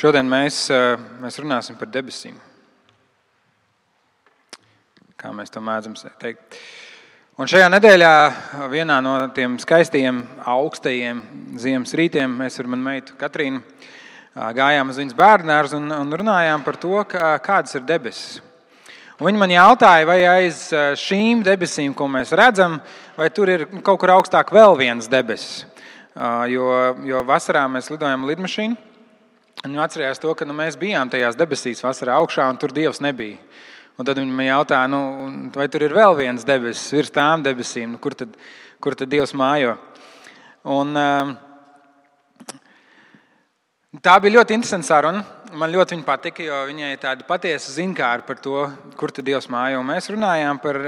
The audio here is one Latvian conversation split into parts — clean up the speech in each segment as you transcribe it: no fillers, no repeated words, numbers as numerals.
Šodien mēs runāsim par debesīm. Kā mēs to mēdzam teikt. Un šajā nedēļā vienā no tiem skaistajiem, augstajiem ziemas rītiem mēs ar manu meitu Katrīnu gājām uz viņas bērnudārzu un runājām par to, kādas ir debesis. Un viņi man jautāja, vai aiz šīm debesīm, ko mēs redzam, vai tur ir kaut kur augstāk vēl viens debesis. Jo vasarā mēs lidojam lidmašīnu. Viņi atcerējās to, ka mēs bijām tajās debesīs vasarā augšā, un tur Dievs nebija. Un tad viņi man jautāja, vai tur ir vēl viens debesis virs tām debesīm, kur tad Dievs mājo. Un tā bija ļoti interesanta saruna. Man ļoti viņa patika, jo viņai ir tāda patiesa zinkāra par to, kur tad Dievs mājo. Un mēs runājām par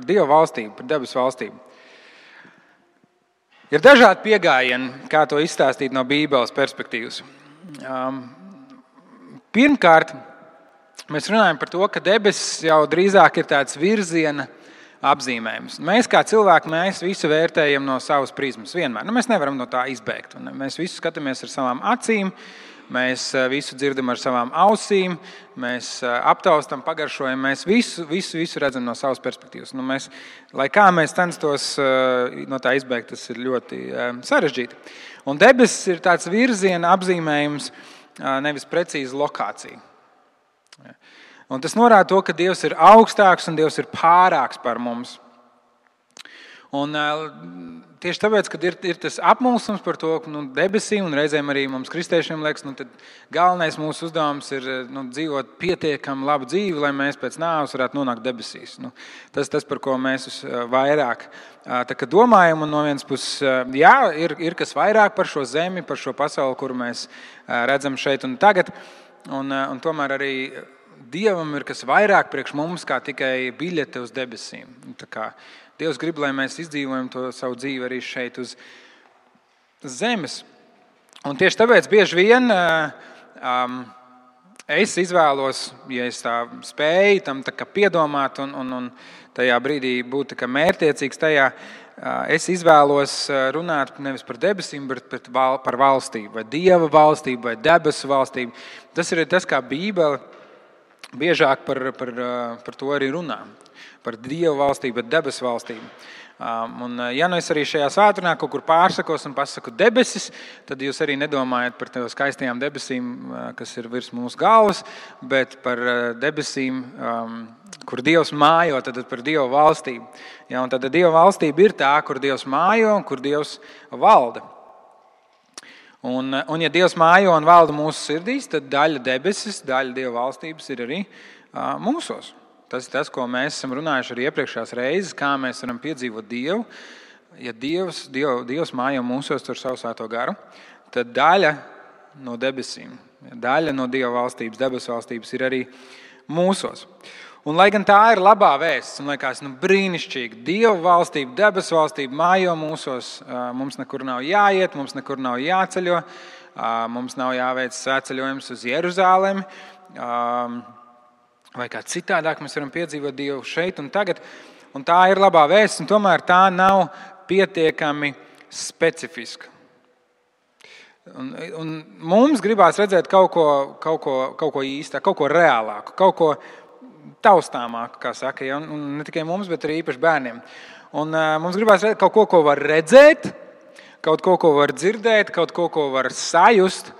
Dieva valstību, par debesu valstību. Ir dažādi pieejami, kā to izstāstīt no Bībeles perspektīvas. Pirmkārt, mēs runājam par to, ka debesis jau drīzāk ir tāds virziena apzīmējums. Mēs kā cilvēki, mēs visu vērtējam no savas prizmas vienmēr. Mēs nevaram no tā izbēgt. Mēs visu skatāmies ar savām acīm, mēs visu dzirdam ar savām ausīm, mēs aptaustam, pagaršojam, mēs visu redzam no savas perspektīvas. Lai kā mēs censtos no tā izbēgt, tas ir ļoti sarežģīti. Un debesis ir tāds virziena apzīmējums, nevis precīza lokācija. Un tas norāda to, ka Dievs ir augstāks un Dievs ir pārāks par mums. Un tieši tāpēc, kad ir tas apmulsums par to debesīm, un reizēm arī mums kristiešiem liekas, tad galvenais mūsu uzdevums ir dzīvot pietiekami labu dzīvi, lai mēs pēc nāves varētu nonākt debesīs. Tas, par ko mēs vairāk domājam, un no vienas puses, jā, ir kas vairāk par šo zemi, par šo pasauli, kuru mēs redzam šeit un tagad, un tomēr arī Dievam ir kas vairāk priekš mums, kā tikai biļete uz debesīm. Tā kā Dievs grib, lai mēs izdzīvojam to savu dzīvi arī šeit uz zemes. Un tieši tāpēc bieži vien es izvēlos, ja es tā spēju tam tā kā piedomāt un tajā brīdī būt tā kā mērķtiecīgs tajā, es izvēlos runāt nevis par debesīm, bet par valstību, vai Dieva valstību, vai debesu valstību. Tas ir tas, kā Bībele biežāk par to arī runā. Par Dieva valstību, bet debesu valstību. Un ja es arī šajā svētdienā kaut kur pārsakos un pasaku debesis, tad jūs arī nedomājat par tādām skaistajām debesīm, kas ir virs mūsu galvas, bet par debesīm, kur Dievs mājo, tad par Dieva valstību. Ja, un tad Dieva valstība ir tā, kur Dievs mājo un kur Dievs valda. Un ja Dievs mājo un valda mūsu sirdīs, tad daļa debesis, daļa Dieva valstības ir arī mūsos. Tas ir tas, ko mēs esam runājuši arī iepriekšējās reizes, kā mēs varam piedzīvot Dievu. Ja Dievs mājo mūsos ar savu svēto garu, tad daļa no debesīm, daļa no Dieva valstības, debesu valstības ir arī mūsos. Un lai gan tā ir labā vēsts, un liekas brīnišķīgi, Dieva valstība, debesu valstība mājo mūsos, mums nekur nav jāiet, mums nekur nav jāceļo, mums nav jāveic svētceļojums uz Jeruzālemi, vai kā citādāk mēs varam piedzīvot Dievu šeit un tagad. Un tā ir labā vēsts, un tomēr tā nav pietiekami specifiska. Un mums gribās redzēt kaut ko īstā, kaut ko reālāku, kaut ko taustāmāku, kā saka, ja? Un ne tikai mums, bet arī īpaši bērniem. Un mums gribās redzēt kaut ko var redzēt, kaut ko var dzirdēt, kaut ko var sajust,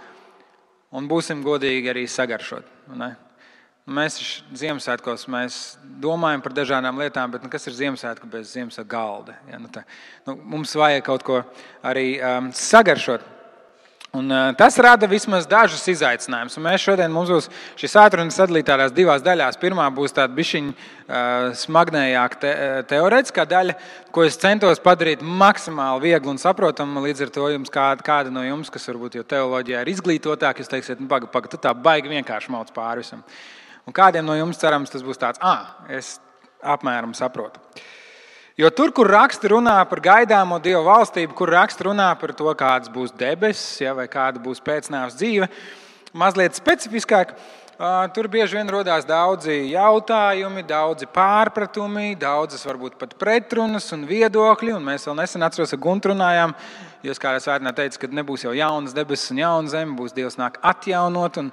un būsim godīgi arī sagaršot. Ne? Mēs Ziemassvētkos domājam par dažādām lietām, bet kas ir Ziemassvētku bez Ziemassvētku galda? Ja, mums vajag kaut ko arī sagaršot. Un tas rada vismaz dažus izaicinājumus. Un mēs šodien mums būs šī svētdiena sadalīta tādās divās daļās. Pirmā būs tāda bišķiņa smagnējāka teorētiskā daļa, ko es centos padarīt maksimāli viegli un saprotamu. Līdz ar to jums kāda no jums, kas varbūt jau teoloģijā ir izglītotāki, jūs teiksiet, paga, tu tā baigi vienkārši mauc pāri visam. Un kādiem no jums cerams tas būs tāds, es apmēram saprotu. Jo tur, kur raksti runā par gaidāmo Dieva valstību, kur raksti runā par to, kādas būs debesis, vai kāda būs pēcnāves dzīve, mazliet specifiskāk, Tur bieži vien rodās daudzi jautājumi, daudzi pārpratumi, daudzas varbūt pat pretrunas un viedokļi. Un mēs vēl nesen atceros, ka Guntu runājām, jūs kādā svētdienā teica, ka nebūs jau jaunas debesis un jauna zeme, būs Dievs nāk atjaunot. Un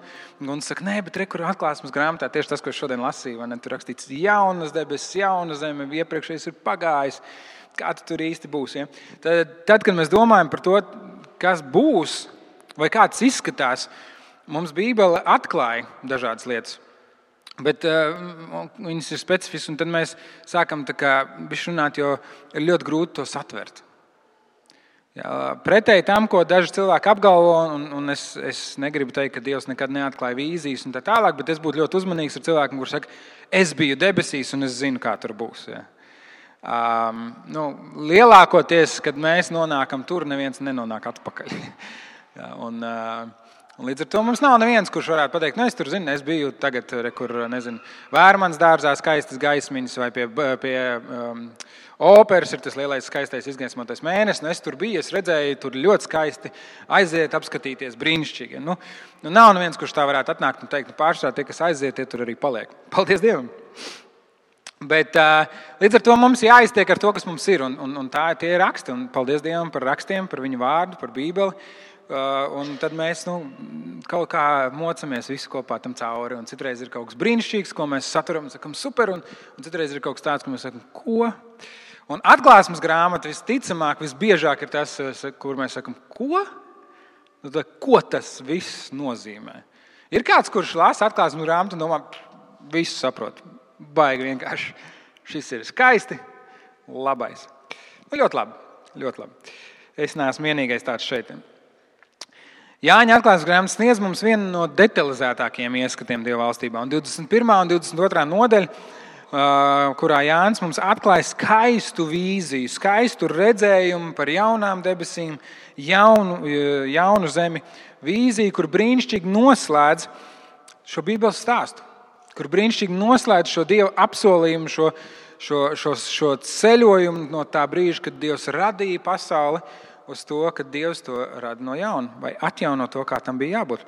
Gunts saka, nē, bet kur Atklāsmes grāmatā tieši tas, ko es šodien lasīju, vai ne? Tur rakstīts jaunas debesis, jauna zeme, iepriekšējais ir pagājis. Kā tu tur īsti būs? Ja? Tad, kad mēs domājam par to, kas būs vai kā tas izskatās, mums Bībele atklāja dažādas lietas, bet viņas ir specifiskas, un tad mēs sākam runāt, jo ir ļoti grūti to satvert. Pretēji tam, ko daži cilvēki apgalvo, un es negribu teikt, ka Dievs nekad neatklāja vīzijas un tā tālāk, bet es būtu ļoti uzmanīgs ar cilvēkiem, kurš saka, es biju debesīs un es zinu, kā tur būs. Ja. Lielākoties, kad mēs nonākam tur, neviens nenonāk atpakaļ. Ja, un līdz ar to mums nav neviens, kurš varētu pateikt, es tur zinu, es biju tagad, kur, Vērmanas dārzā skaistas gaismiņas vai pie operas ir tas lielais skaistais izgaismotais mēnesis, es tur biju, es redzēju, tur ļoti skaisti aiziet, apskatīties, brīnišķīgi. Nav neviens, kurš tā varētu atnākt un teikt, pārsvarā tie, kas aiziet, tie tur arī paliek. Paldies Dievam! Bet līdz ar to mums jāiztiek ar to, kas mums ir, un tie ir raksti, un paldies Dievam par rakstiem, par viņu vārdu, par Bībeli. Un tad mēs kaut kā mocamies visu kopā tam cauri. Un citreiz ir kaut kas brīnišķīgs, ko mēs saturam un sakam super, un citreiz ir kaut kas tāds, ko mēs sakam, ko? Un Atklāsmes grāmata visticamāk, visbiežāk ir tas, kur mēs sakam, ko? Ko tas viss nozīmē? Ir kāds, kurš lasa Atklāsmes grāmatu un domā, visu saprot. Baigi vienkārši. Šis ir skaisti, labais. Ļoti labi, ļoti labi. Es neesmu vienīgais tāds šeit. Jāņa Atklāsmes grāmata sniedz mums vienu no detalizētākajiem ieskatiem Dieva valstībā. Un 21. un 22. nodaļa, kurā Jānis mums atklāja skaistu vīziju, skaistu redzējumu par jaunām debesīm, jaunu zemi, vīziju, kur brīnišķīgi noslēdz šo Bībeles stāstu, kur brīnišķīgi noslēdz šo Dieva apsolījumu, šo ceļojumu no tā brīža, kad Dievs radīja pasauli, uz to, ka Dievs to rada no jauna vai atjauno to, kā tam bija jābūt.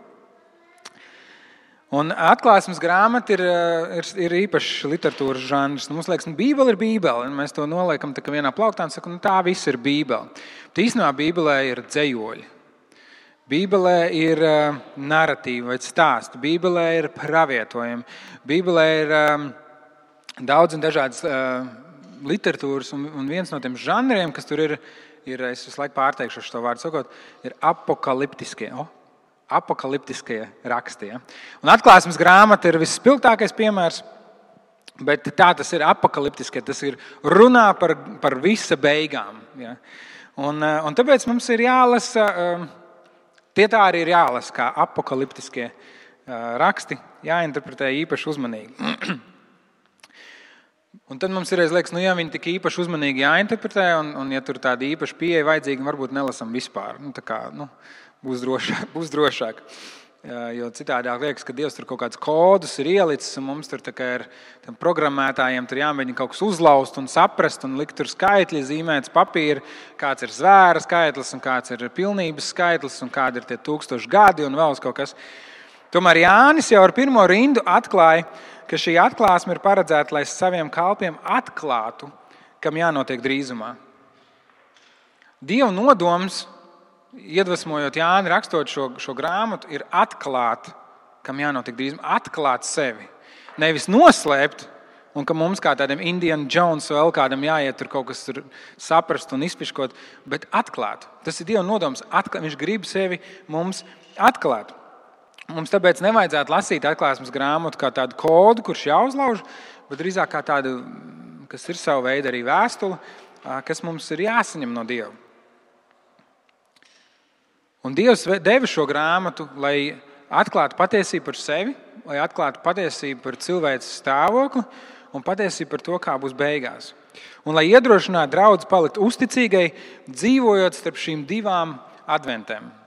Un Atklāsmes grāmata ir īpašs literatūras žanrs. Mums liekas, Bībele ir Bībele, un mēs to noliekam tā kā vienā plauktā un sakam, tā viss ir Bībele. Bet īstenībā Bībelē ir dzejoļi. Bībelē ir naratīva vai stāsti. Bībelē ir pravietojumi. Bībelē ir daudz un dažādas literatūras, un viens no tiem žanriem, kas tur ir, es visu laiku pārteikšu šo vārdu sakot, ir apokaliptiskie raksti. Ja? Un Atklāsmes grāmata ir visspilgtākais piemērs, bet tā tas ir apokaliptiskie, tas ir runā par visa beigām. Ja? Un tāpēc mums ir jālasa, tie tā arī ir jālasa, kā apokaliptiskie raksti, jāinterpretē īpaši uzmanīgi. Un tad mums ir liekas, ja viņi tik īpaši uzmanīgi jāinterpretē, un ja tur tāda īpaša pieeja vajadzīga, varbūt nelasam vispār. Būs drošāk. Jo citādāk liekas, ka Dievs tur kaut kādus kodus ir ielicis, un mums tur ir programmētājiem tur jāmēģina kaut kas uzlaust un saprast, un likt tur skaitļi, zīmēts papīri, kāds ir zvēra skaitlis, un kāds ir pilnības skaitlis, un kādi ir tie 1000 gadi, un vēl kaut kas. Tomēr Jānis jau ar pirmo rindu atklāja, ka šī atklāsme ir paredzēta, lai saviem kalpiem atklātu, kam jānotiek drīzumā. Dieva nodoms, iedvesmojot Jāni rakstot šo grāmatu, ir atklāt, kam jānotiek drīzumā, atklāt sevi. Nevis noslēpt, un ka mums kā tādiem Indiana Jones vēl kādam jāiet tur kaut kas tur saprast un izpiškot, bet atklāt. Tas ir Dieva nodoms, viņš grib sevi mums atklāt. Mums tāpēc nevajadzētu lasīt Atklāsmes grāmatu kā tādu kodu, kurš jāuzlauž, bet drīzāk kā tādu, kas ir savu veidu arī vēstule, kas mums ir jāsaņem no Dieva. Un Dievs deva šo grāmatu, lai atklātu patiesību par sevi, lai atklātu patiesību par cilvēces stāvokli un patiesību par to, kā būs beigās. Un lai iedrošinātu draudzi palikt uzticīgai, dzīvojot starp šīm divām adventēm.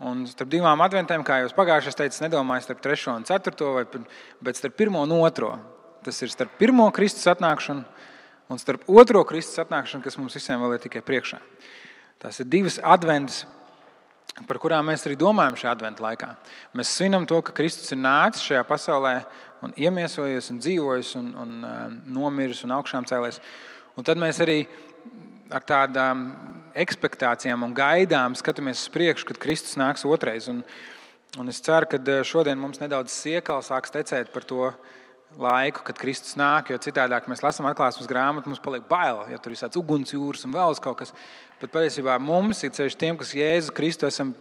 Un starp divām adventēm, kā jau pagājušajā teicu, nedomāju starp 3. un 4. bet starp 1. un 2. Tas ir starp 1. Kristus atnākšanu un starp 2. Kristus atnākšanu, kas mums visiem vēl ir tikai priekšā. Tās ir divas adventas, par kurām mēs arī domājam šajā adventa laikā. Mēs svinam to, ka Kristus ir nācis šajā pasaulē un iemiesojies un dzīvojis un nomiris un augšām cēlies. Un tad mēs arī ar tādām ekspektācijām un gaidām skatāmies uz priekšu, kad Kristus nāks otrais. Un es ceru, ka šodien mums nedaudz siekals sāks tecēt par to laiku, kad Kristus nāk, jo citādāk mēs lasām atklāsmes grāmatu, mums paliek bail, ja tur ir tāds ugunsjūras un vēl kaut kas. Bet patiesībā mums, ir ceļš tiem, kas Jēzu Kristu esam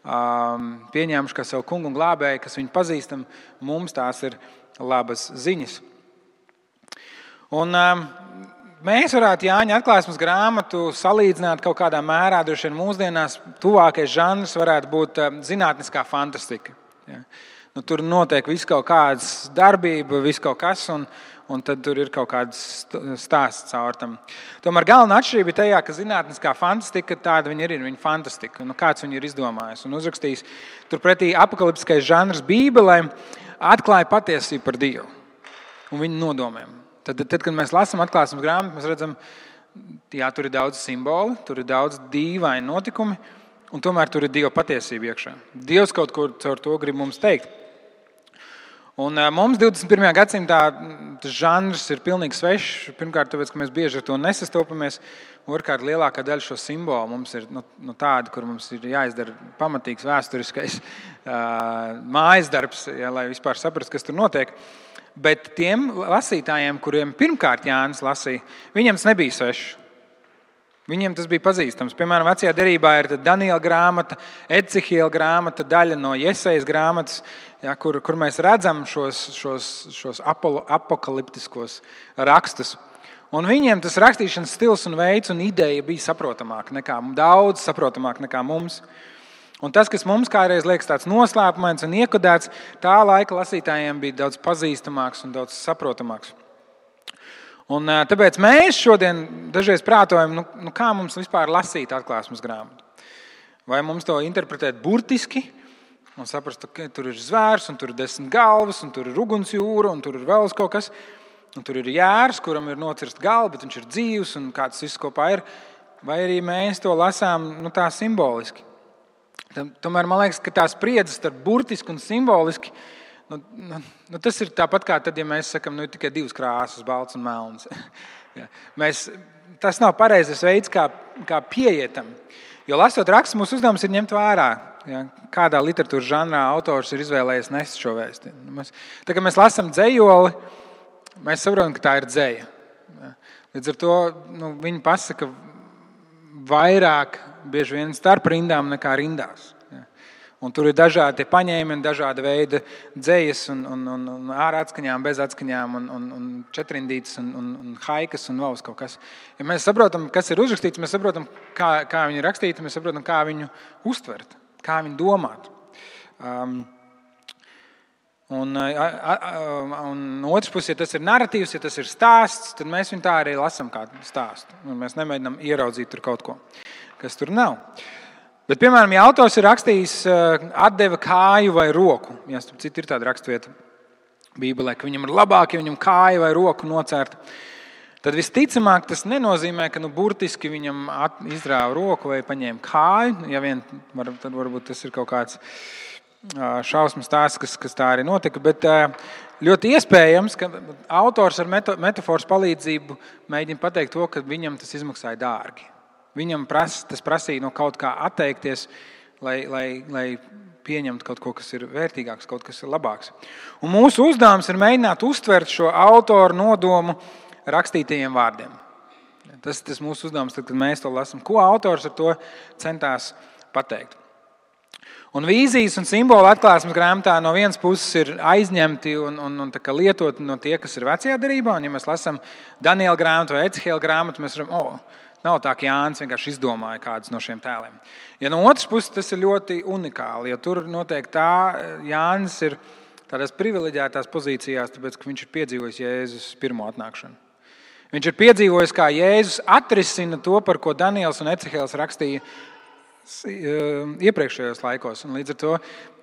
pieņēmuši kā savu kungu un glābēju, kas viņu pazīstam, mums tās ir labas ziņas. Un mēs varētu Jāņa atklāsmes grāmatu salīdzināt kaut kādā mērā, droši vien mūsdienās tuvākais žanrs varētu būt zinātniskā fantastika. Ja. Tur notiek viss kaut kādas darbība, viss kaut kas, un tad tur ir kaut kāds stāsts caur tam. Tomēr galvenā atšķirība ir tajā, ka zinātniskā fantastika tāda viņa ir fantastika. Kāds viņu ir izdomājis un uzrakstījis. Turpretī apokaliptiskais žanrs Bībelē atklāja patiesību par Dievu un viņa nodomiem. Tad, kad mēs lasām atklāsmes grāmatu, mēs redzam, jā, tur ir daudz simboli, tur ir daudz dīvaini notikumi, un tomēr tur ir Dieva patiesība iekšā. Dievs kaut ko caur to grib mums teikt. Un mums 21. gadsimtā tas žanrs ir pilnīgi svešs. Pirmkārt, tāpēc, ka mēs bieži ar to nesastopamies. Otrkārt, lielākā daļa šo simbolu mums ir tāda, kur mums ir jāizdara pamatīgs vēsturiskais mājas darbs, lai vispār saprastu, kas tur notiek. Bet tiem lasītājiem, kuriem pirmkārt Jānis lasīja, viņiem tas nebija svešs. Viņiem tas bija pazīstams. Piemēram, vecajā derībā ir Daniela grāmata, Ecihiela grāmata, daļa no Jesejas grāmatas, ja, kur mēs redzam šos apokaliptiskos rakstus. Un viņiem tas rakstīšanas stils un veids un ideja bija daudz saprotamāk nekā mums. Un tas, kas mums kādreiz liekas tāds noslēpumains un iekodēts, tā laika lasītājiem bija daudz pazīstamāks un daudz saprotamāks. Un tāpēc mēs šodien dažreiz prātojam, kā mums vispār lasīt atklāsmes grāmatu. Vai mums to interpretēt burtiski un saprast, ka tur ir zvērs, un tur ir 10 galvas, un tur ir ugunsjūra, un tur ir vēl kaut kas, un tur ir jērs, kuram ir nocirst galva, bet viņš ir dzīvs, un kā tas viss kopā ir. Vai arī mēs to lasām tā simboliski. Tomēr man liekas, ka tā spriedze starp burtiski un simboliski, tas ir tāpat kā tad, ja mēs sakam, ir tikai 2 krāsas, balts un melns. Ja. Tas nav pareizais veids, kā pieietam. Jo lasot rakstus, mūsu uzdevums ir ņemt vērā, ja, kādā literatūras žanrā autors ir izvēlējies nest šo vēsti. Tā kā mēs lasām dzejoli, mēs saprotam, ka tā ir dzeja. Ja. Līdz ar to viņi pasaka vairāk bieži vien starp rindām nekā rindās. Un tur ir dažādi paņēmieni, dažāda veida dzejas un ārā atskaņām, bez atskaņām, un četrindītes un haikas un vēl kaut kas. Ja mēs saprotam, kas ir uzrakstīts, mēs saprotam, kā viņi ir rakstīti, mēs saprotam, kā viņu uztvert, kā viņu domāt. Un otrs puses, ja tas ir narratīvs, ja tas ir stāsts, tad mēs viņu tā arī lasam kā stāstu. Un mēs nemēģinām ieraudzīt tur kaut ko, kas tur nav. Bet, piemēram, ja autors ir rakstījis atdeva kāju vai roku, ja citu ir tāda rakstvieta Bībelē, ka viņam ir labāk, ja viņam kāja vai roku nocērta, tad visticamāk tas nenozīmē, ka burtiski viņam izrāva roku vai paņēma kāju. Ja vien, tad varbūt tas ir kaut kāds šausmas stāsts, kas tā arī notika, bet ļoti iespējams, ka autors ar metaforas palīdzību mēģina pateikt to, ka viņam tas izmaksāja dārgi. Viņam tas prasīja no kaut kā atteikties, lai pieņemtu kaut ko, kas ir vērtīgāks, kaut kas ir labāks. Un mūsu uzdevums ir mēģināt uztvert šo autoru nodomu rakstītajiem vārdiem. Tas mūsu uzdevums, tad, kad mēs to lasām. Ko autors ar to centās pateikt? Un vīzijas un simboli atklāsmes grāmatā no vienas puses ir aizņemti un lietoti no tie, kas ir vecajā derībā. Un, ja mēs lasām Daniela grāmatu vai Ecihiela grāmatu, mēs redzam, nav tā, ka Jānis vienkārši izdomāja kādus no šiem tēliem. Ja no otras puses tas ir ļoti unikāli, jo tur notiek tā, Jānis ir tādās privileģētās pozīcijās, tāpēc, ka viņš ir piedzīvojis Jēzus pirmo atnākšanu. Viņš ir piedzīvojis, kā Jēzus atrisina to, par ko Daniels un Ecihēls rakstīja iepriekšējos laikos. Un līdz ar to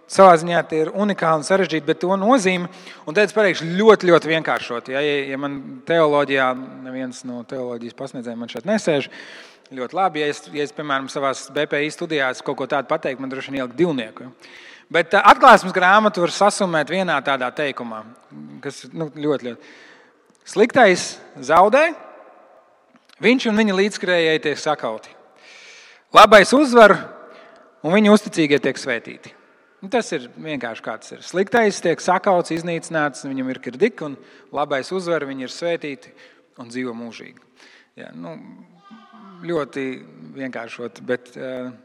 savā ziņā tie ir unikāli un sarežģīti, bet to nozīme, un tad es pateikšu ļoti, ļoti vienkāršot. Ja man teoloģijā, neviens no teoloģijas pasniedzējiem man šeit nesēž, ļoti labi, ja es piemēram, savās BPI studijās kaut ko tādu pateiktu, man droši vien ielikt divnieku. Bet Atklāsmes grāmatu var sasumēt vienā tādā teikumā, kas ļoti, ļoti. Sliktais zaudē, viņš un viņa līdzskrējēji tiek sakauti. Labais uzvar, un viņa uzticīgie tiek svētīti. Tas ir vienkārši kā tas ir. Sliktais tiek sakauts, iznīcināts, viņam ir kirdik, un labais uzvar, viņi ir svētīti un dzīvo mūžīgi. Jā, ļoti vienkāršot, bet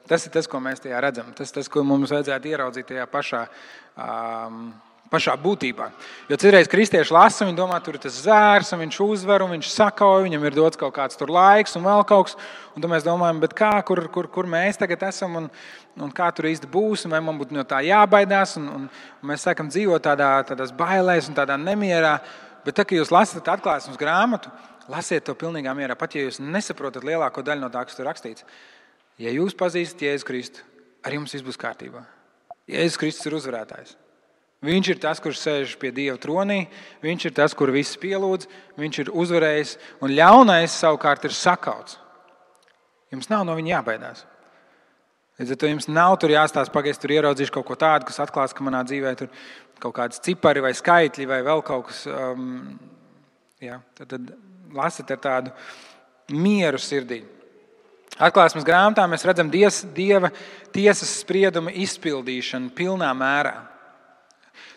tas ir tas, ko mēs tajā redzam. Tas ir tas, ko mums vajadzētu ieraudzīt tajā pašā būtībā. Jo citreiz kristieši lasa, viņi domā, tur ir tas zvērs, un viņš uzvar, un viņš sakauj, viņam ir dots kaut kāds tur laiks un vēl kaut kas. Un tad mēs domājam, bet kā, kur mēs tagad esam, un kā tur īsti būs, un vai man būtu no tā jābaidās. Un mēs sākam dzīvot tādās bailēs un tādā nemierā. Bet tad, kad jūs lasat Atklāsmes grāmatu, lasiet to pilnīgā mierā, pat ja jūs nesaprotat lielāko daļu no tā, kas tur rakstīts. Ja jūs pazīstat Jēzu Kristu, ar jums viss būs kārtībā. Jēzus Kristus ir uzvarētājs. Viņš ir tas, kurš sēž pie Dieva tronī, viņš ir tas, kur viss pielūdz, viņš ir uzvarējis, un ļaunais savukārt ir sakauts. Jums nav no viņa jābaidās. Līdz ar to jums nav tur jāstāsta, pagaidzi tur ieraudzīšu kaut ko tādu, kas atklās, ka manā dzīvē tur kaut kādas cipari vai skaitļi vai vēl kaut kas. Tad lasat ar tādu mieru sirdī. Atklāsmes grāmatā mēs redzam Dieva tiesas sprieduma izpildīšanu pilnā mērā.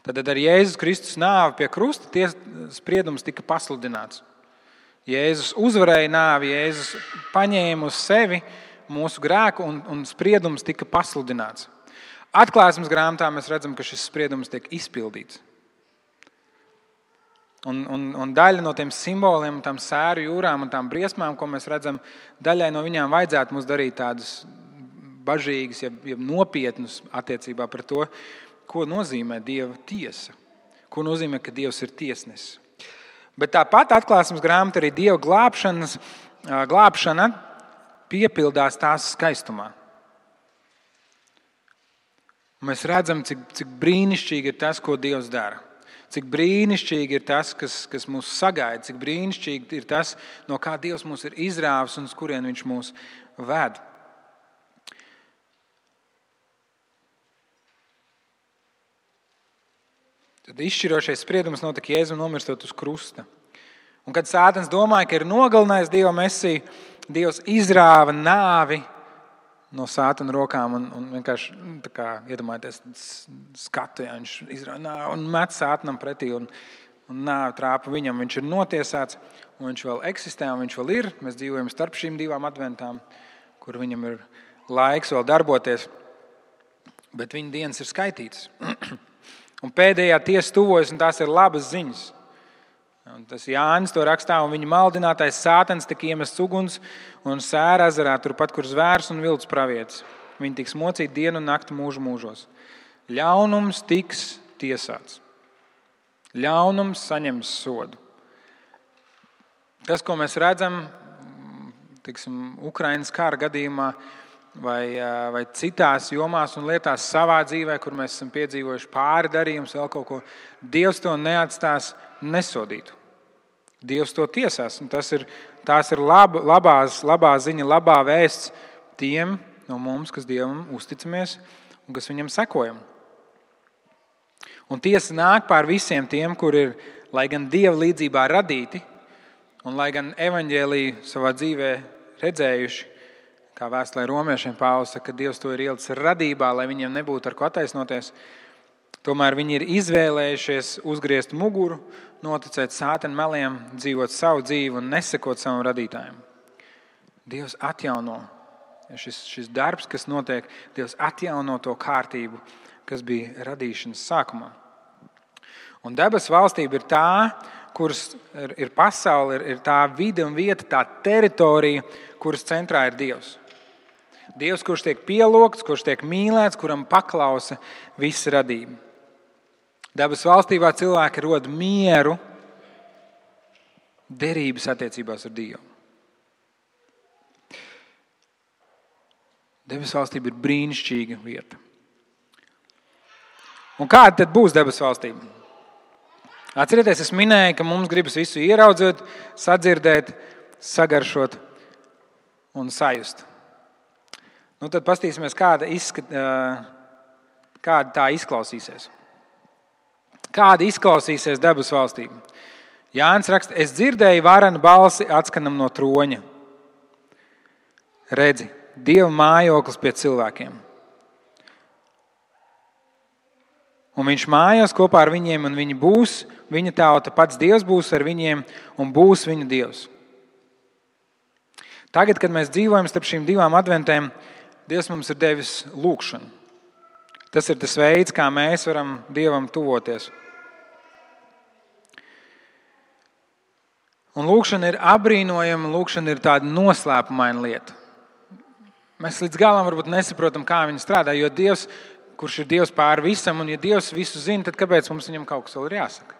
Tad ar Jēzus Kristus nāvi pie krusta spriedums tika pasludināts. Jēzus uzvarēja nāvi, Jēzus paņēma uz sevi mūsu grēku un spriedums tika pasludināts. Atklāsmes grāmatā mēs redzam, ka šis spriedums tiek izpildīts. Un daļa no tiem simboliem, tām sēru jūrām un tām briesmām, ko mēs redzam, daļai no viņām vajadzētu mums darīt tādas bažīgas, ja nopietnas attiecībā par to, ko nozīmē Dieva tiesa, ko nozīmē, ka Dievs ir tiesnesis. Bet tāpat Atklāsmes grāmata arī Dieva glābšana piepildās tās skaistumā. Mēs redzam, cik brīnišķīgi ir tas, ko Dievs dara. Cik brīnišķīgi ir tas, kas mūs sagaida, cik brīnišķīgi ir tas, no kā Dievs mūs ir izrāvis un uz kurien viņš mūs ved. Tad izšķirošais spriedums notika Jēzum nomirstot uz krusta. Un kad Sātans domāja, ka ir nogalinājis Dieva Mesiju, Dievs izrāva nāvi no Sātana rokām un vienkārši iedomājieties skatu, ja viņš izrāva nāvi un met Sātanam pretī un nāvi trāpa viņam. Viņš ir notiesāts un viņš vēl eksistē un viņš vēl ir. Mēs dzīvojam starp šīm divām adventām, kur viņam ir laiks vēl darboties, bet viņa dienas ir skaitītas. Un pēdējā tiesa tuvojas, un tās ir labas ziņas. Un tas Jānis to rakstā, un viņa maldinātais Sātans tika iemests uguns un sēra ezerā, turpat, kur zvērs un vilts pravietis. Viņi tiks mocīti dienu un nakti mūžu mūžos. Ļaunums tiks tiesāts. Ļaunums saņems sodu. Tas, ko mēs redzam, Ukrainas kara gadījumā, vai citās jomās un lietās savā dzīvē, kur mēs esam piedzīvojuši pāri darījumus, vēl kaut ko, Dievs to neatstās nesodītu. Dievs to tiesās. Un tās ir labā ziņa, labā vēsts tiem no mums, kas Dievam uzticamies un kas viņam sekojam. Un tiesa nāk pār visiem tiem, kur ir, lai gan Dieva līdzībā radīti, un lai gan evaņģēliju savā dzīvē redzējuši, kā vēstulē romiešiem Pāvils saka, ka Dievs to ir ielicis radībā, lai viņiem nebūtu ar ko attaisnoties. Tomēr viņi ir izvēlējušies uzgriezt muguru, noticēt Sātana meliem, dzīvot savu dzīvi un nesekot savam radītājam. Dievs atjauno šis darbs, kas notiek, Dievs atjauno to kārtību, kas bija radīšanas sākumā. Un debesu valstība ir tā, kuras ir pasaule, ir tā vide un vieta, tā teritorija, kuras centrā ir Dievs. Dievs, kurš tiek pielūgts, kurš tiek mīlēts, kuram paklausa visa radība. Debesu valstībā cilvēki rod mieru derības attiecībās ar Dievu. Debesu valstība ir brīnišķīga vieta. Un kāda tad būs debesu valstība? Atcerieties, es minēju, ka mums gribas visu ieraudzīt, sadzirdēt, sagaršot un sajust. Nu, tad paskatīsimies, kāda tā izklausīsies. Kāda izklausīsies debesu valstība? Jānis raksta, es dzirdēju varenu balsi atskanam no troņa. Redzi, Dieva mājoklis pie cilvēkiem. Un viņš mājās kopā ar viņiem, un viņi būs viņa tauta, pats Dievs būs ar viņiem un būs viņu Dievs. Tagad, kad mēs dzīvojam starp šīm divām adventēm, Dievs mums ir devis lūgšanu. Tas ir tas veids, kā mēs varam Dievam tuvoties. Un lūgšana ir apbrīnojama, lūgšana ir tāda noslēpumaina lieta. Mēs līdz galam varbūt nesaprotam, kā viņa strādā, jo Dievs, kurš ir Dievs pār visam, un ja Dievs visu zina, tad kāpēc mums viņam kaut kas vēl ir jāsaka?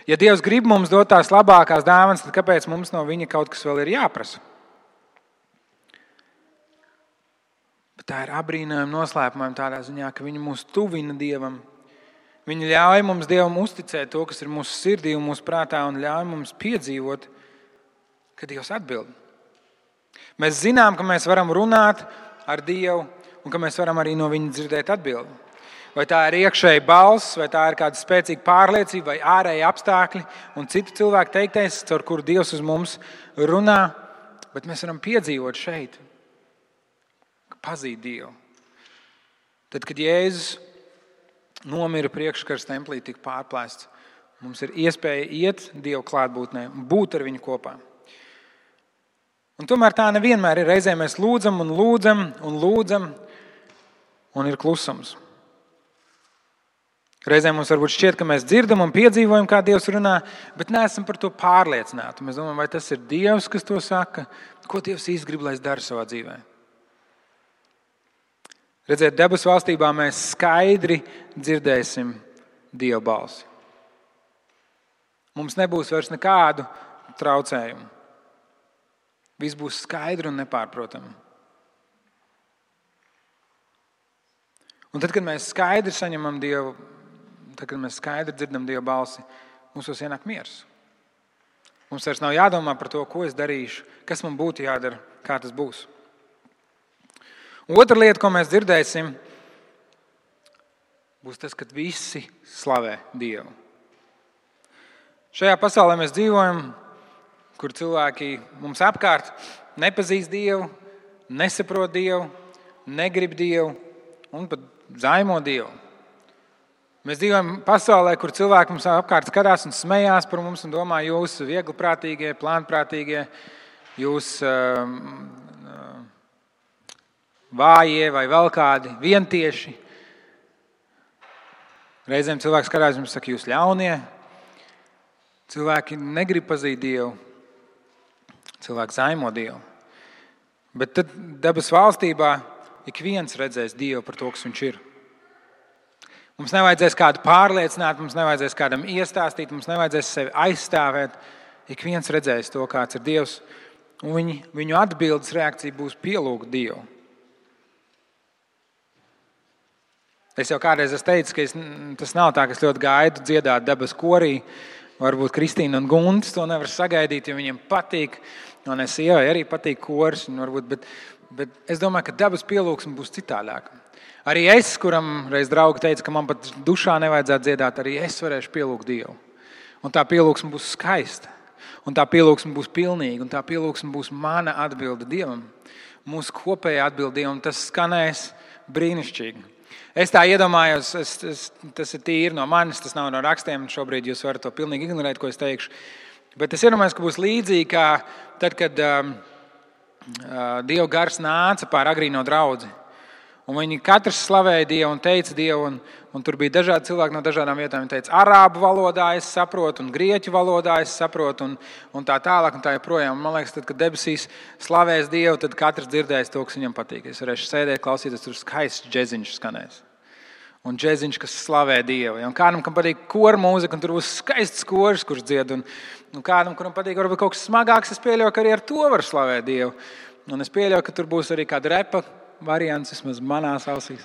Ja Dievs grib mums dot tās labākās dāvanas, tad kāpēc mums no viņa kaut kas vēl ir jāprasa? Bet tā ir apbrīnojama, noslēpumājama tādā ziņā, ka viņa mūs tuvina Dievam. Viņa ļauj mums Dievam uzticēt to, kas ir mūsu sirdī un mūsu prātā, un ļauj mums piedzīvot, ka Dievs atbild. Mēs zinām, ka mēs varam runāt ar Dievu un ka mēs varam arī no viņa dzirdēt atbildi. Vai tā ir iekšēja balss, vai tā ir kāda spēcīga pārliecība, vai ārēji apstākļi un citu cilvēku teiktais, caur kuru Dievs uz mums runā, bet mēs varam piedzīvot šeit, ka pazīt Dievu. Tad, kad Jēzus nomira priekškars templī, tika pārplēsts, mums ir iespēja iet Dievu klātbūtnē un būt ar viņu kopā. Un tomēr tā nevienmēr ir. Reizē mēs lūdzam un lūdzam un lūdzam, un ir klusums. Reizē mums varbūt šķiet, ka mēs dzirdam un piedzīvojam, kā Dievs runā, bet neesam par to pārliecināti. Mēs domājam, vai tas ir Dievs, kas to saka, ko Dievs īsti grib, lai es daru savā dzīvē. Redziet, debesu valstībā mēs skaidri dzirdēsim Dieva balsi. Mums nebūs vairs nekādu traucējumu. Viss būs skaidri un nepārprotami. Un tad, kad mēs skaidri saņemam Dievu, tad, kad mēs skaidri dzirdam Dieva balsi, mums ienāk miers. Mums vairs nav jādomā par to, ko es darīšu, kas man būtu jādara, kā tas būs. Un otra lieta, ko mēs dzirdēsim, būs tas, kad visi slavē Dievu. Šajā pasaulē mēs dzīvojam, kur cilvēki mums apkārt nepazīst Dievu, nesaprot Dievu, negrib Dievu un pat zaimo Dievu. Mēs dzīvojam pasaulē, kur cilvēki mums apkārt skatās un smējās par mums un domā, jūs viegliprātīgie, plānprātīgie, jūs vājie vai vēl kādi vientieši. Reizēm cilvēks skatās un saka, jūs ļaunie. Cilvēki negrib pazīt Dievu. Cilvēki zaimo Dievu. Bet tad debesu valstībā ik viens redzēs Dievu par to, kas viņš ir. Mums nevajadzēs kādu pārliecināt, mums nevajadzēs kādam iestāstīt, mums nevajadzēs sevi aizstāvēt. Ik viens redzēs to, kāds ir Dievs, un viņu atbildes reakcija būs pielūgt Dievu. Es jau kādreiz esmu teicis, ka tas nav tā, ka es ļoti gaidu dziedāt debesu korī. Varbūt Kristīna un Guntis to nevar sagaidīt, jo viņiem patīk. Un es sievai arī patīk koris, bet es domāju, ka debesu pielūgsme būs citādāka. Arī es, kuram reiz draugi teica, ka man pat dušā nevajadzētu dziedāt, arī es varēšu pielūgt Dievu. Un tā pielūgsme būs skaista. Un tā pielūgsme būs pilnīga. Un tā pielūgsme būs mana atbilde Dievam. Mūsu kopējā atbilde Dievam. Tas skanēs brīnišķīgi. Es tā iedomājos, tas ir tīri no manis, tas nav no rakstiem. Šobrīd jūs varat to pilnīgi ignorēt, ko es teikšu. Bet es iedomājos, ka būs līdzīgi kā tad, kad Dieva gars nāca pār agrīno draudzi. Un viņi katrs slavēja Dievu un teica Dievu. Un tur bija dažādi cilvēki no dažādām vietām. Viņi teica, arābu valodā es saprotu, un grieķu valodā es saprotu, un tā tālāk, un tā joprojām. Man liekas, tad, kad debesīs slavēs Dievu, tad katrs dzirdēs to, kas viņam patīk. Es varēšu sēdēt, klausīties, tur skaists džeziņš skanēs. Un džeziņš, kas slavē Dievu. Un kādam, kam patīk kora mūzika, un tur būs skaists koris, kurš dzied. Un kādam, kuram patīk varbūt kaut kas smagāks, es pieļauju, ka arī ar to var slavēt Dievu. Un es pieļauju, ka tur būs arī kāda repa variants, vismaz manās ausīs.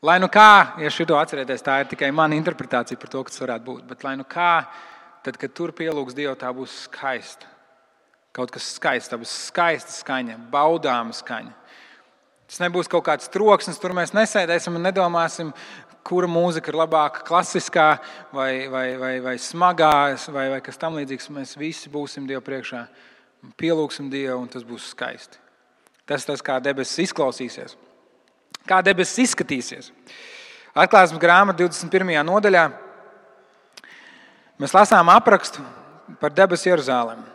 Lai nu kā, ja šito atcerieties, tā ir tikai mana interpretācija par to, kas varētu būt. Bet lai nu kā, tad, kad tur pielūgs Dievu, tā būs skaista. Kaut kas skaists, tā būs skaista skaņa, baudāma skaņa. Tas nebūs kaut kāds troksnis, tur mēs nesēdēsim un nedomāsim, kura mūzika ir labāka, klasiskā vai smagā, vai kas tam līdzīgs. Mēs visi būsim Dievu priekšā, pielūgsim Dievu, un tas būs skaisti. Tas, kā debesis izklausīsies. Kā debesis izskatīsies. Atklāsmes grāmata 21. nodaļā mēs lasām aprakstu par debesu Jeruzalemi.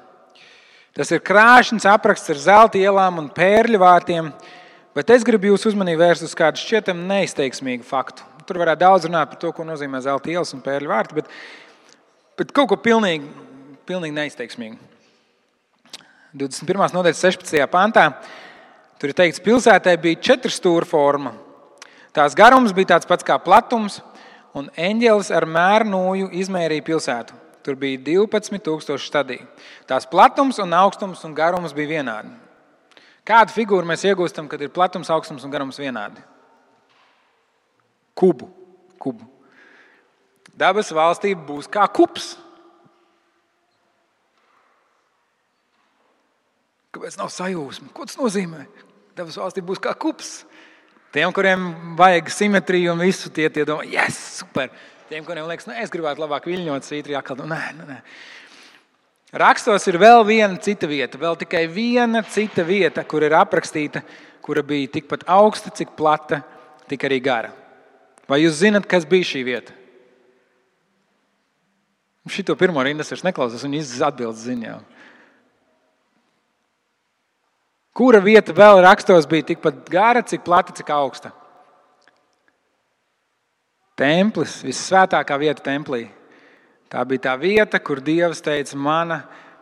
Tas ir krāšņs apraksts ar zelta ielām un pērļu vārtiem, bet es gribu jūsu uzmanību vērst uz kādu šķietam neizteiksmīgu faktu. Tur varētu daudz runāt par to, ko nozīmē zelta ielas un pērļu vārti, bet kaut ko pilnīgi neizteiksmīgu. 21. nodaļas 16. pantā tur ir teikts, pilsētai bija 4 stūra forma. Tās garums bija tāds pats kā platums, un eņģelis ar mērnūju izmērīja pilsētu. Tur bija 12,000 stadiju. Tās platums un augstums un garums bija vienādi. Kādu figūru mēs iegūstam, kad ir platums, augstums un garums vienādi? Kubu. Dabas valstība būs kā kubs. Kāpēc nav sajūsma? Ko tas nozīmē? Dabas valstība būs kā kubs. Tiem, kuriem vajag simetriju un visu, tie domā, yes, super. Tiem, kuriem liekas, es gribētu labāk viļņot svītri, atkal, nē. Rakstos ir vēl viena cita vieta, vēl tikai viena cita vieta, kur ir aprakstīta, kura bija tikpat augsta, cik plata, tik arī gara. Vai jūs zinat, kas bija šī vieta? Šito pirmo rindas vairs neklausās, un jūs atbildes ziņā. Kura vieta vēl rakstos bija tikpat gara, cik plata, cik augsta? Templis, vissvētākā vieta templī. Tā bija tā vieta, kur Dievs teica, mana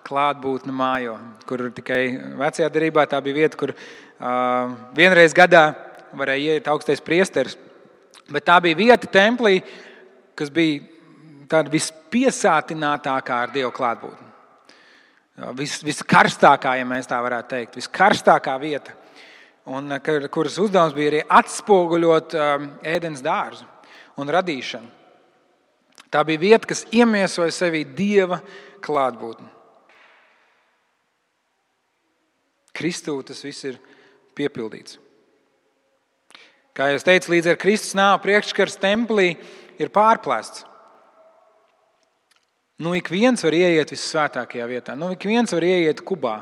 klātbūtne mājo. Kur tikai vecajā derībā tā bija vieta, kur vienreiz gadā varēja iet augstais priesteris. Bet tā bija vieta templī, kas bija tāda vispiesātinātākā ar Dievu klātbūtni. Viskarstākā, ja mēs tā varētu teikt, viskarstākā vieta, un kuras uzdevums bija arī atspoguļot ēdens dārzu un radīšanu. Tā bija vieta, kas iemiesoja sevī Dieva klātbūtni. Kristū tas viss ir piepildīts. Kā jau es teicu, līdz ar Kristus nāvi priekškars templī ir pārplēsts. Ik viens var ieiet vissvētākajā vietā. Ik viens var ieiet kubā.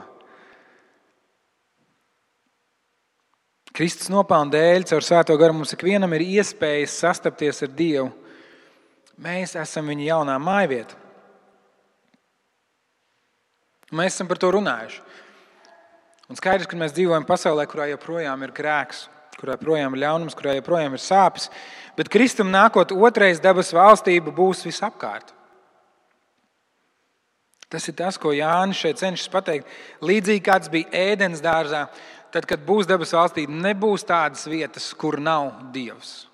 Kristus nopelna dēļ caur svēto garu mums ikvienam ir iespējas sastapties ar Dievu. Mēs esam viņa jaunā mājvieta. Mēs esam par to runājuši. Un skaidrs, ka mēs dzīvojam pasaulē, kurā joprojām ir grēks, kurā joprojām ir ļaunums, kurā joprojām ir sāpes. Bet Kristum nākot otrais debesu valstība būs visapkārt. Tas ir tas, ko Jānis šeit cenšas pateikt. Līdzīgi kāds bija ēdens dārzā, tad, kad būs debesu valstība, nebūs tādas vietas, kur nav Dievs.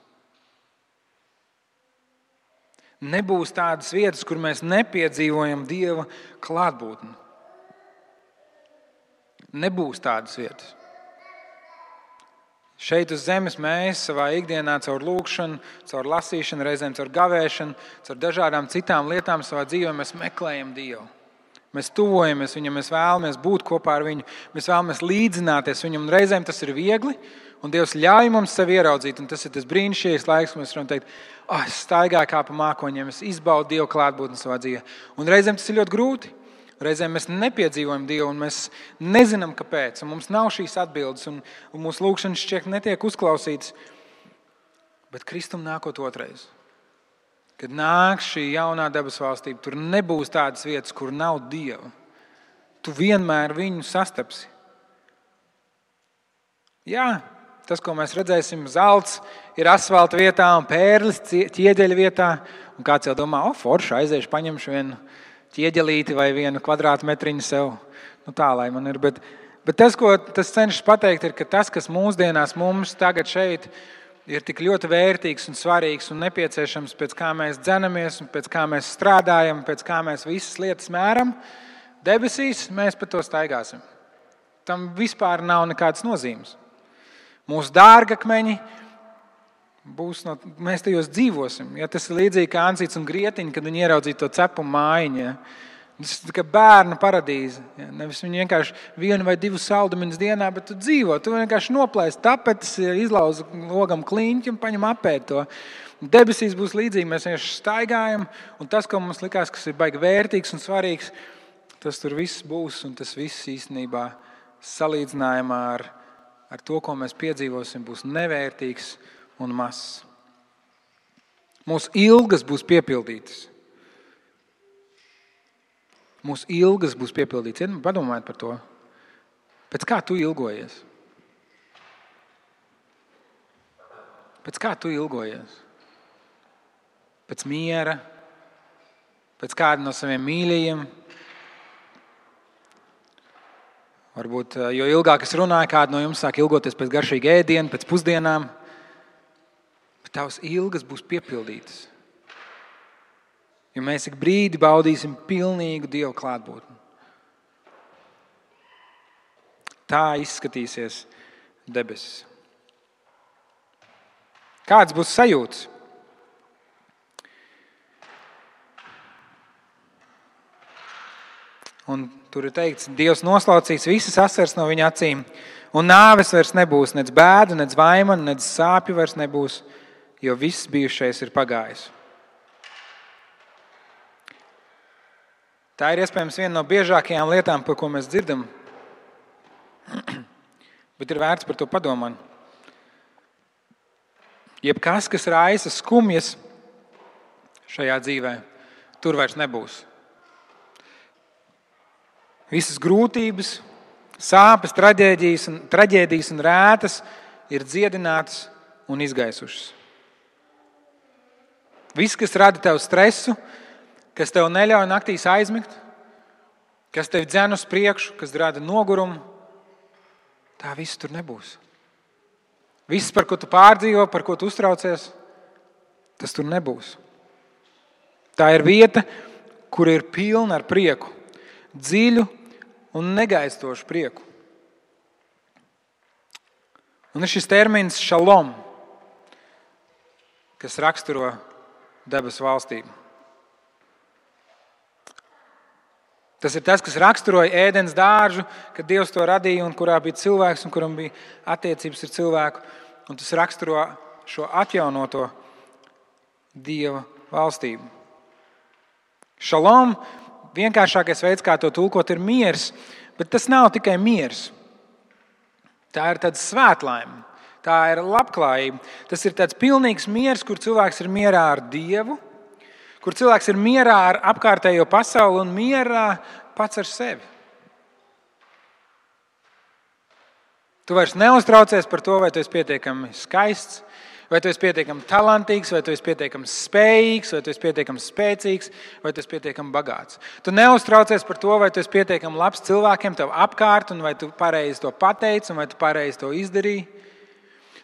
Nebūs tādas vietas, kur mēs nepiedzīvojam Dieva klātbūtni. Nebūs tādas vietas. Šeit uz zemes mēs savā ikdienā caur lūgšanu, caur lasīšanu, reizēm caur gavēšanu, caur dažādām citām lietām savā dzīvē mēs meklējam Dievu. Mēs tuvojamies viņam, mēs vēlamies būt kopā ar viņu, mēs vēlamies līdzināties viņam, un reizēm tas ir viegli, un Dievs ļauj mums sevi ieraudzīt, un tas ir tas brīnišķīgais laiks, kad mēs varam teikt, es staigāju kā pa mākoņiem, es izbaudu Dievu klātbūtni savā dzīvē. Un reizēm tas ir ļoti grūti, reizēm mēs nepiedzīvojam Dievu, un mēs nezinām, kāpēc, un mums nav šīs atbildes, un mūsu lūgšanas šķiet netiek uzklausītas, bet Kristum nākot otrais. Kad nāk šī jaunā debesu valstība, tur nebūs tādas vietas, kur nav Dieva. Tu vienmēr viņu sastapsi. Jā, tas, ko mēs redzēsim, zelts ir asfalta vietā un pērlis ķieģeļa vietā. Un kāds jau domā, forši, aiziešu, paņemšu vienu ķieģelīti vai vienu kvadrātmetriņu sev. Tā, lai man ir. Bet tas, ko tas cenšas pateikt, ir, ka tas, kas mūsdienās mums tagad šeit ir tik ļoti vērtīgs un svarīgs un nepieciešams, pēc kā mēs dzenamies un pēc kā mēs strādājam, pēc kā mēs visas lietas mēram, debesīs mēs pa to staigāsim. Tam vispār nav nekādas nozīmes. Mūsu dārgakmeņi, Mēs tajos dzīvosim. Ja, tas ir līdzīgi kā Ansīts un Grietiņa, kad viņi ieraudzīja to cepumu mājiņu. Ja. Tas ir kā bērnu paradīze. Ja. Nevis viņi vienkārši 1 vai 2 saldumiņus dienā, bet tu dzīvo. Tu vienkārši noplēsi tapetes, izlauzi logam kliņķi un paņem apēd to. Debesīs būs līdzīgi. Mēs vienkārši staigājam, un tas, ko mums likās, kas ir baigi vērtīgs un svarīgs, tas tur viss būs, un tas viss īstenībā salīdzinājumā ar to, ko mēs piedzīvosim, būs nevērtīgs un mazs. Mūsu ilgas būs piepildītas. Mūsu ilgas būs piepildītas. Padomājiet par to. Pēc kā tu ilgojies? Pēc kā tu ilgojies? Pēc miera? Pēc kāda no saviem mīļajiem? Varbūt, jo ilgāk es runāju, kāda no jums sāk ilgoties pēc garšīga ēdiena, pēc pusdienām. Bet tavas ilgas būs piepildītas. Jo mēs ik brīdi baudīsim pilnīgu Dieva klātbūtni. Tā izskatīsies debesis. Kāds būs sajūtas? Un tur ir teikts, Dievs noslaucīs visas asaras no viņa acīm, un nāves vairs nebūs, nec bēdu, nec vaimanu, nec sāpju vairs nebūs, jo viss bijušais ir pagājis. Tā ir iespējams viena no biežākajām lietām, par ko mēs dzirdam, bet ir vērts par to padomāt. Jebkas, kas raisa skumjas šajā dzīvē, tur vairs nebūs. Visas grūtības, sāpes, traģēdijas un rētas ir dziedinātas un izgaisušas. Viss, kas rada tev stresu, kas tev neļauj naktīs aizmigt, kas tev dzen uz priekšu, kas rada nogurumu, tā viss tur nebūs. Viss, par ko tu pārdzīvo, par ko tu uztraucies, tas tur nebūs. Tā ir vieta, kur ir pilna ar prieku, dziļu un negaistošu prieku. Un ir šis termins šalom, kas raksturo debesu valstību. Tas ir tas, kas raksturoja ēdens dārzu, kad Dievs to radīja un kurā bija cilvēks un kuram bija attiecības ar cilvēku. Un tas raksturo šo atjaunoto Dieva valstību. Šalom, vienkāršākais veids, kā to tulkot, ir miers, bet tas nav tikai miers. Tā ir tāda svētlaime, tā ir labklājība. Tas ir tāds pilnīgs miers, kur cilvēks ir mierā ar Dievu, kur cilvēks ir mierā ar apkārtējo pasauli un mierā pats ar sevi. Tu vairs neuztraucies par to, vai tu esi pietiekami skaists, vai tu esi pietiekami talantīgs, vai tu esi pietiekami spējīgs, vai tu esi pietiekami spēcīgs, vai tu esi pietiekami bagāts. Tu neuztraucies par to, vai tu esi pietiekami labs cilvēkiem tev apkārt, un vai tu pareizi to pateici, un vai tu pareizi to izdarīji.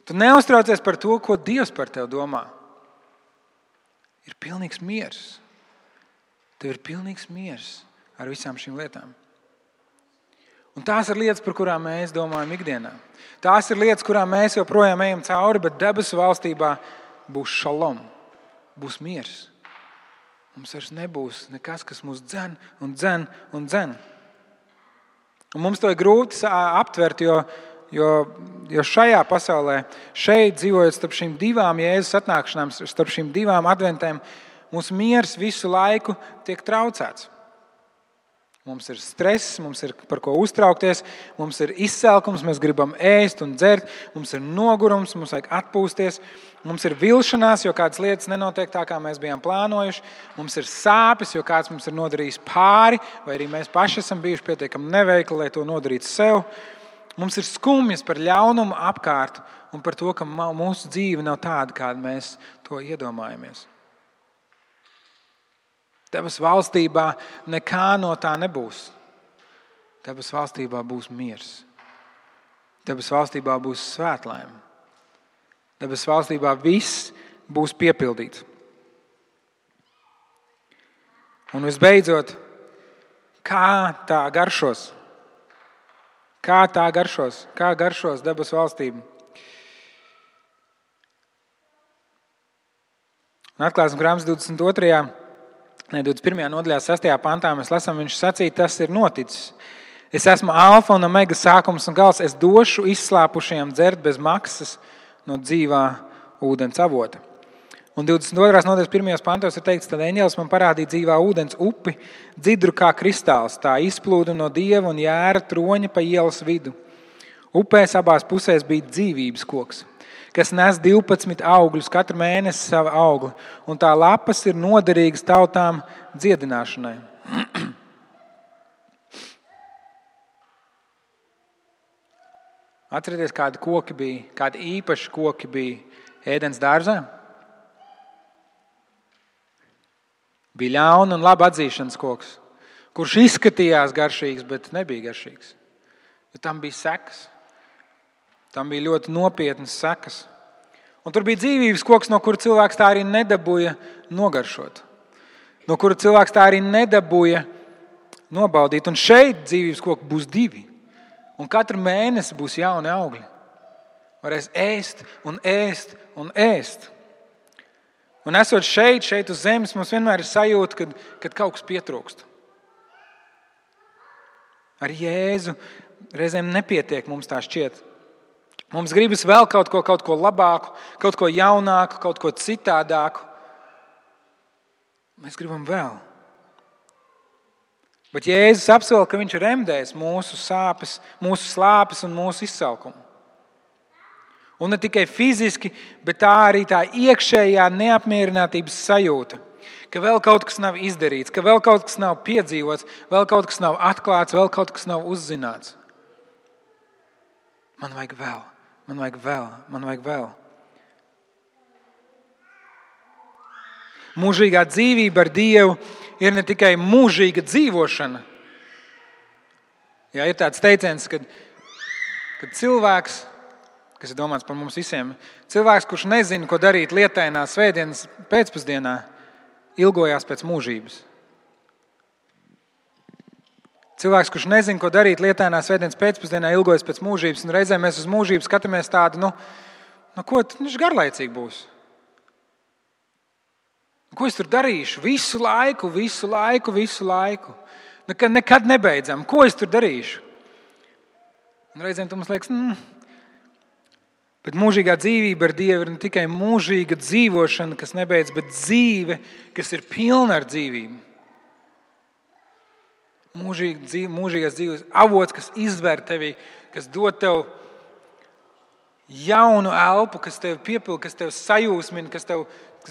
Tu neuztraucies par to, ko Dievs par tevi domā. Ir pilnīgs miers. Tev ir pilnīgs miers ar visām šīm lietām. Un tās ir lietas, par kurām mēs domājam ikdienā. Tās ir lietas, kurām mēs joprojām ejam cauri, bet debesu valstībā būs šalom, būs miers. Mums vairs nebūs nekas, kas mūs dzen un dzen un dzen. Un mums to ir grūti aptvert, jo šajā pasaulē, šeit dzīvojot starp šīm divām Jēzus atnākšanām, starp šīm divām adventēm, mūsu miers visu laiku tiek traucēts. Mums ir stress, mums ir par ko uztraukties, mums ir izsalkums, mēs gribam ēst un dzert, mums ir nogurums, mums vajag atpūsties, mums ir vilšanās, jo kādas lietas nenotiek tā, kā mēs bijām plānojuši, mums ir sāpes, jo kāds mums ir nodarījis pāri, vai arī mēs paši esam bijuši pietiekami neveikli, lai to nodarītu sev. Mums ir skumjas par ļaunumu apkārt un par to, ka mūsu dzīve nav tāda, kāda mēs to iedomājamies. Debesu valstībā nekā no tā nebūs. Debesu valstībā būs miers. Debesu valstībā būs svētlaime. Debesu valstībā viss būs piepildīts. Un visbeidzot, kā tā garšos? Kā tā garšos? Kā garšos debesu valstību? Un Atklāsmes grāmatas 21. nodaļā 6. pantā mēs lasām, viņš sacīja, tas ir noticis. Es esmu alfa un omega sākums un gals. Es došu izslāpušajiem dzert bez maksas no dzīvā ūdens avota. Un 22. nodaļas 1. pantos ir teikts, tad eņģelis man parādīja dzīvā ūdens upi, dzidru kā kristāls. Tā izplūda no Dieva un jēra troņa pa ielas vidu. Upēs abās pusēs bija dzīvības koks, kas nes 12 augļus, katru mēnesi savu augli, un tā lapas ir noderīgas tautām dziedināšanai. Atcerieties, kādi koki bija, kādi īpaši koki bija Ēdens dārzā? Bija ļauna un laba atzīšanas koks, kurš izskatījās garšīgs, bet nebija garšīgs. Jo tam bija sekas. Tam bija ļoti nopietnas sekas. Un tur bija dzīvības koks, no kura cilvēks tā arī nedabūja nogaršot. No kura cilvēks tā arī nedabūja nobaudīt. Un šeit dzīvības koki būs 2. Un katru mēnesi būs jauni augļi. Varēs ēst un ēst un ēst. Un esot šeit uz zemes, mums vienmēr ir sajūta, kad kaut kas pietrūkst. Ar Jēzu reizēm nepietiek, mums tā šķiet. Mums gribas vēl kaut ko labāku, kaut ko jaunāku, kaut ko citādāku. Mēs gribam vēl. Bet Jēzus apsola, ka viņš remdēs mūsu sāpes, mūsu slāpes un mūsu izsalkumu. Un ne tikai fiziski, bet tā arī tā iekšējā neapmierinātības sajūta, ka vēl kaut kas nav izdarīts, ka vēl kaut kas nav piedzīvots, vēl kaut kas nav atklāts, vēl kaut kas nav uzzināts. Man vajag vēl. Man vajag vēl, man vajag vēl. Mūžīgā dzīvība ar Dievu ir ne tikai mūžīga dzīvošana. Jā, ir tāds teiciens, kad cilvēks, kas ir domāts par mums visiem, cilvēks, kurš nezina, ko darīt lietainā svētdienas pēcpusdienā, ilgojās pēc mūžības. Cilvēks, kurš nezina, ko darīt lietainā svētdienas pēcpusdienā, ilgojas pēc mūžības, un reizē mēs uz mūžību skatāmies tādu, ko viņš garlaicīgi būs. Ko es tur darīšu? Visu laiku. Nekad nebeidzam. Ko es tur darīšu? Un reizēm mums liekas, bet mūžīgā dzīvība ar Dievu ir ne tikai mūžīga dzīvošana, kas nebeidz, bet dzīve, kas ir pilna ar dzīvību. Mūžīgās dzīves avots, kas izver tevi, kas dod tev jaunu elpu, kas tev piepilda, kas tev sajūsmina, kas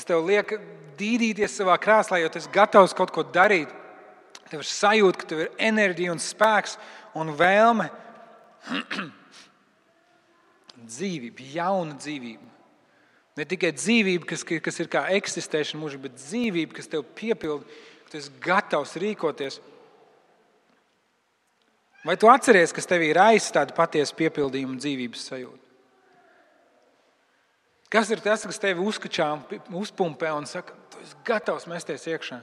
tev liek dīdīties savā krēslā, jo tu esi gatavs kaut ko darīt. Tev ir sajūta, ka tev ir enerģija un spēks un vēlme. Dzīvība, jauna dzīvība. Ne tikai dzīvība, kas ir kā eksistēšana mūžīgi, bet dzīvība, kas tev piepilda, ka tu esi gatavs rīkoties. Vai tu atceries, kas tevī ir aiz tādu patiesu piepildījumu un dzīvības sajūtu? Kas ir tas, kas tevi uzpumpē un saka, tu esi gatavs mesties iekšā?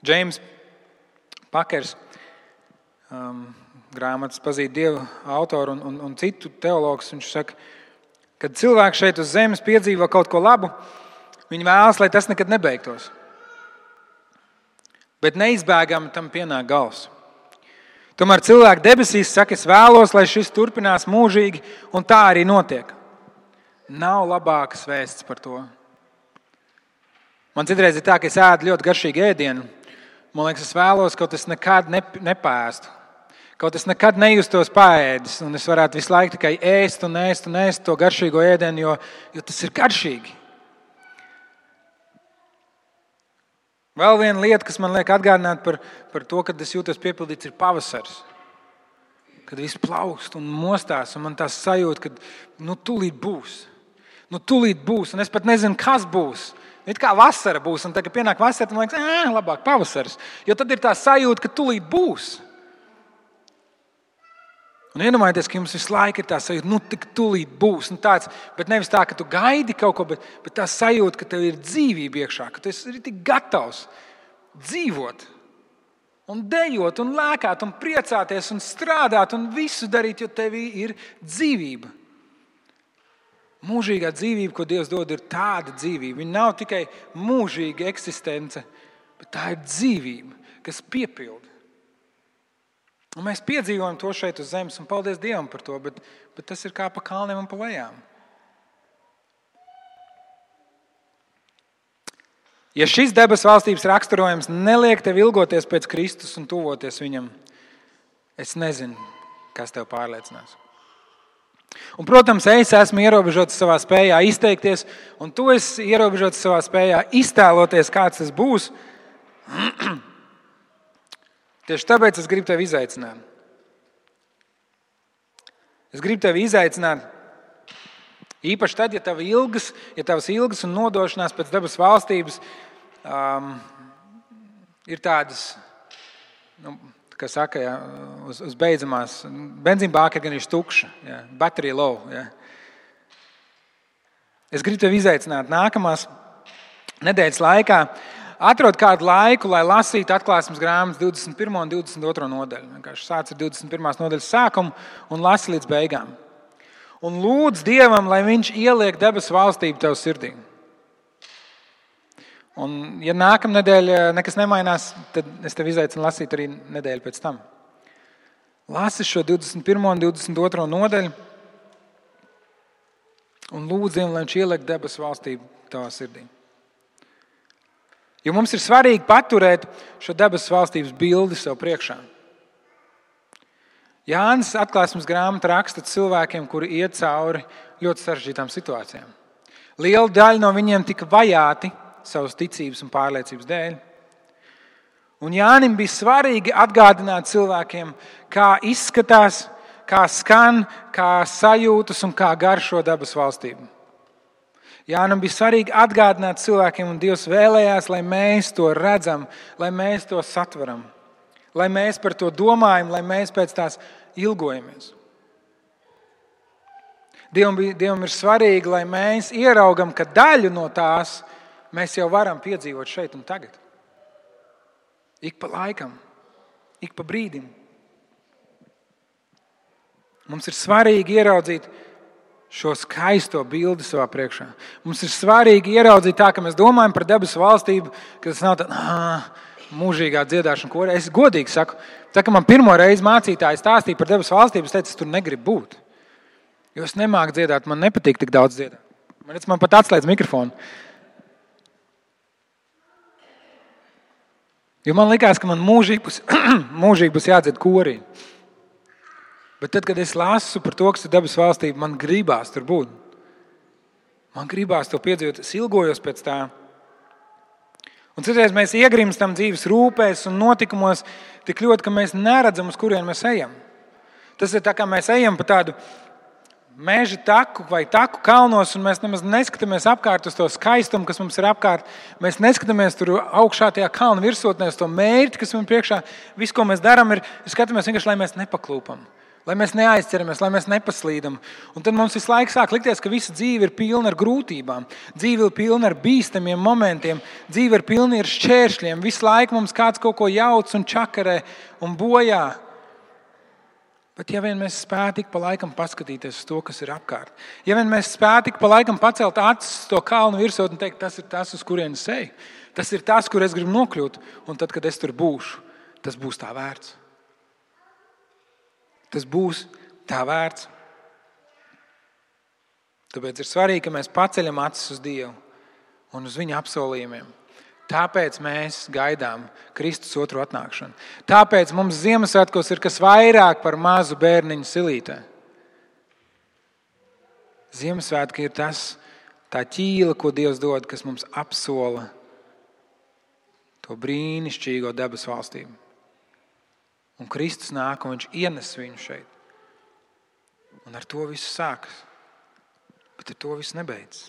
Džeims Pakers, grāmatas Pazīt Dievu autoru un citu teologus, viņš saka, kad cilvēks šeit uz zemes piedzīvo kaut ko labu, viņi vēlas, lai tas nekad nebeigtos. Bet neizbēgami tam pienāk gals. Tomēr cilvēki debesīs saka, es vēlos, lai šis turpinās mūžīgi, un tā arī notiek. Nav labākas vēsts par to. Man citreiz ir tā, ka es ēdu ļoti garšīgu ēdienu. Man liekas, es vēlos, kaut es nekad nepēstu. Kaut es nekad nejustos paēdis, un es varētu visu laiku tikai ēst to garšīgo ēdienu, jo tas ir garšīgi. Vēl viena lieta, kas man liek atgādināt par to, kad es jūtos piepildīts, ir pavasaris. Kad viss plaukst un mostās, un man tā sajūta, ka tūlīt būs. Tūlīt būs, un es pat nezinu, kas būs. It kā vasara būs, un tad, kad pienāk vasara, man liekas, labāk pavasaris. Jo tad ir tā sajūta, ka tūlīt būs. Un iedomājieties, ka jums visu laiku ir tā sajūta, tik tūlīt būs. Bet nevis tā, ka tu gaidi kaut ko, bet tā sajūta, ka tev ir dzīvība iekšā, ka tu esi tik gatavs dzīvot. un dejot, un lēkāt, un priecāties, un strādāt, un visu darīt, jo tevī ir dzīvība. Mūžīgā dzīvība, ko Dievs dod, ir tāda dzīvība. Viņa nav tikai mūžīga eksistence, bet tā ir dzīvība, kas piepilda. Un mēs piedzīvojam to šeit uz zemes, un paldies Dievam par to, bet tas ir kā pa kalniem un pa lejām. Ja šis debesu valstības raksturojums neliek tev ilgoties pēc Kristus un tuvoties viņam, es nezinu, kas tev pārliecinās. Un, protams, es esmu ierobežots savā spējā izteikties, un tu esi ierobežots savā spējā iztēloties, kāds tas būs. Tieši tāpēc es gribu tevi izaicināt. Es gribu tevi izaicināt, īpaši tad, ja tavas ilgas un nodošanās pēc debesu valstības ir tādas, kā saka, uz beidzamās, benzīnbāka ir gan ir tukša, battery low. Es gribu tevi izaicināt nākamās nedēļas laikā. Atrod kādu laiku, lai lasītu atklāsmes grāmatas 21. un 22. nodaļu. Vienkārši sāc ar 21. nodaļas sākumu un lasi līdz beigām. Un lūdz Dievam, lai viņš ieliek debesu valstību tev sirdī. Un, ja nākamnedēļ nekas nemainās, tad es tevi izaicinu lasīt arī nedēļu pēc tam. Lasi šo 21. un 22. nodaļu un lūdz Dievam, lai viņš ieliek debesu valstību tavā sirdī. Jo mums ir svarīgi paturēt šo debesu valstības bildi sev priekšā. Jānis atklāsmes grāmata raksta cilvēkiem, kuri iet cauri ļoti sarežģītām situācijām. Liela daļa no viņiem tika vajāti savas ticības un pārliecības dēļ. Un Jānim bija svarīgi atgādināt cilvēkiem, kā izskatās, kā skan, kā sajūtas un kā garšo debesu valstību. Jānam bija svarīgi atgādināt cilvēkiem, un Dievs vēlējās, lai mēs to redzam, lai mēs to satveram, lai mēs par to domājam, lai mēs pēc tās ilgojamies. Dievam ir svarīgi, lai mēs ieraugam, ka daļu no tās mēs jau varam piedzīvot šeit un tagad. Ik pa laikam, ik pa brīdim. Mums ir svarīgi ieraudzīt šo skaisto bildi savā priekšā. Mums ir svarīgi ieraudzīt tā, ka mēs domājam par debesu valstību, ka tas nav tā mūžīgā dziedāšana korē. Es godīgi saku, tā kā man pirmo reizi mācītāji stāstīja par debesu valstību, es teicu, es tur negribu būt. Jo es nemāku dziedāt, man nepatīk tik daudz dziedāt. Man pat atslēdz mikrofonu. Jo man likās, ka man mūžīgi būs jādzied korī. Bet tad, kad es lasu par to, kas ir debesu valstība, man gribās tur būt. Man gribās to piedzīvot, es ilgojos pēc tā. Un citreiz mēs iegrimstam dzīves rūpēs un notikumos tik ļoti, ka mēs neredzam, uz kurien mēs ejam. Tas ir tā, kā mēs ejam pa tādu meža taku vai taku kalnos, un mēs nemaz neskatāmies apkārt uz to skaistumu, kas mums ir apkārt. Mēs neskatāmies tur augšā tajā kalna virsotnē uz to mērķi, kas mums priekšā. Viss, ko mēs darām, ir skatāmies vienkārši, lai mēs nepaklūpam. Lai mēs neaizķeramies, lai mēs nepaslīdam. Un tad mums visu laiku sāk likties, ka visa dzīve ir pilna ar grūtībām. Dzīve ir pilna ar bīstamiem momentiem. Dzīve ir pilna ar šķēršļiem. Visu laiku mums kāds kaut ko jauc un čakarē un bojā. Bet ja vien mēs spētu ik pa laikam paskatīties uz to, kas ir apkārt. Ja vien mēs spētu ik pa laikam pacelt acis uz to kalnu virsot un teikt, tas ir tas, uz kurienes eju. Tas ir tas, kur es gribu nokļūt. Un tad, kad es tur būšu, tas būs tā vērts. Tas būs tā vērts. Tāpēc ir svarīgi, ka mēs paceļam acis uz Dievu un uz viņa apsolījumiem. Tāpēc mēs gaidām Kristus otru atnākšanu. Tāpēc mums Ziemassvētkos ir kas vairāk par mazu bērniņu silītē. Ziemassvētki ir tā ķīla, ko Dievs dod, kas mums apsola to brīnišķīgo debesu valstību. Un Kristus nāk, un viņš ienes viņu šeit. Un ar to viss sākas. Bet ar to viss nebeidzas.